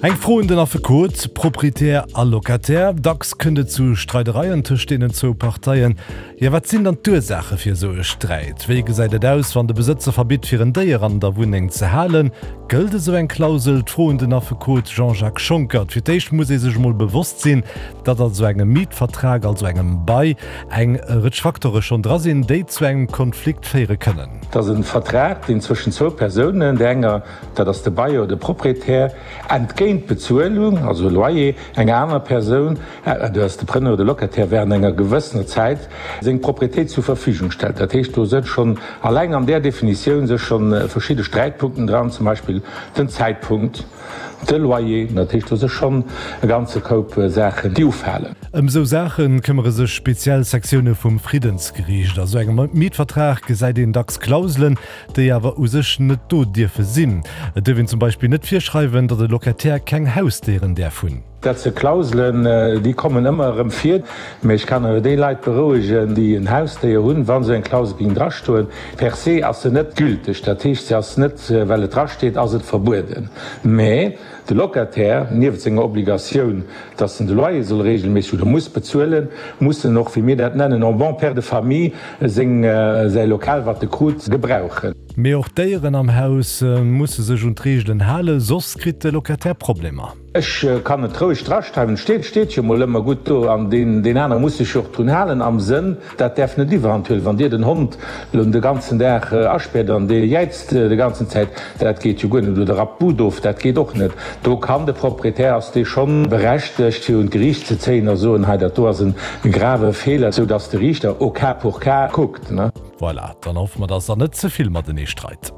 Eng Fro un den Affekot, Proprietär a Locataire, Dacks kënnt et zu Streidereien tëscht deenen zwou Parteien. Jo, wat sinn dann d'Ursaache fir esou e Sträit? Wéi gesäit et aus, wann de Besëtzer verbitt, fir en Déier an der Wunneng ze halen? Gëllt esou eng Klausel? D'Fro un den Affekot Jean-Jacques Schonckert. Fir d'éischt muss ee sech emol bewosst sinn, datt an esou engem Mietvertrag, also engem Bail, eng Rëtsch Facteure schonn dra sinn, déi zu engem Konflikt féiere kënnen. Et ass e Vertrag, deen zwëschen zwou Persounen, där enger, dat ass de Bailleur, de Proprietär, entgéint Bezuelung, also Loyer, enger anerer Persoun, dat ass de Preneur, de Locataire, während enger gewëssener Zäit seng Propriétéit zur Verfügung stellt. Dat heescht, do sënn schonn alleng an där Definitioun sech schonn verschidde Sträitpunkten dran, zum Beispill den Zäitpunkt, De Loyer, dat heescht, do si schonn e ganze Koup Saachen, déi ufalen. Ëm esou Saache këmmere sech speziell Sektioune vum Friddensgeriicht. A sou engem Mietvertrag gesäit een dacks Klauselen, déi awer u sech net do dierfe sinn. Et duerf een zum Beispill net virschreiwen, datt e Locataire keng Hausdéieren däerf hunn. Dat si Klauselen, déi kommen ëmmer erëm vir. Mee ech kann awer déi Leit berouegen, déi en Hausdéier hunn, wa sou eng Klausel géing drastoen, per se ass se net gülteg. Dat heescht, se ass net, well et drasteet, ass et verbueden. Mä de Locataire, nieft senger Obligatioun, dass en de Loyer soll regelméisseg oder muss bezuelen, muss en och, wéi mir dat nennen, en bon père de famille seng, säi Lokal, wat e krut, gebrauchen. Mee och d'Déieren am Haus musse sech un d'Reegelen halen, soss kritt de Locataire Problemer. Ech kann et roueg draschreiwen, et steet, steet jo mol ëmmer gutt do an deen, deen anere muss sech jo och drun halen am Sënn, dat däerf net iwwerhand huelen. Wann Dir den Hond elo de ganzen Dag aspäert an dee jäizt de ganzen Zäit, dat geet jo guer net, oder rappt d'Bud of, dat geet och net. Do kann de Proprietär, ass dee schonn berechtegt fir un d'Geriicht ze zéien a soen, hei dat do ass e grave Feeler, sou datt de Riichter au cas pour cas kuckt. Voilà, dann hoffe mer, dass Der net ze vill matenee streit.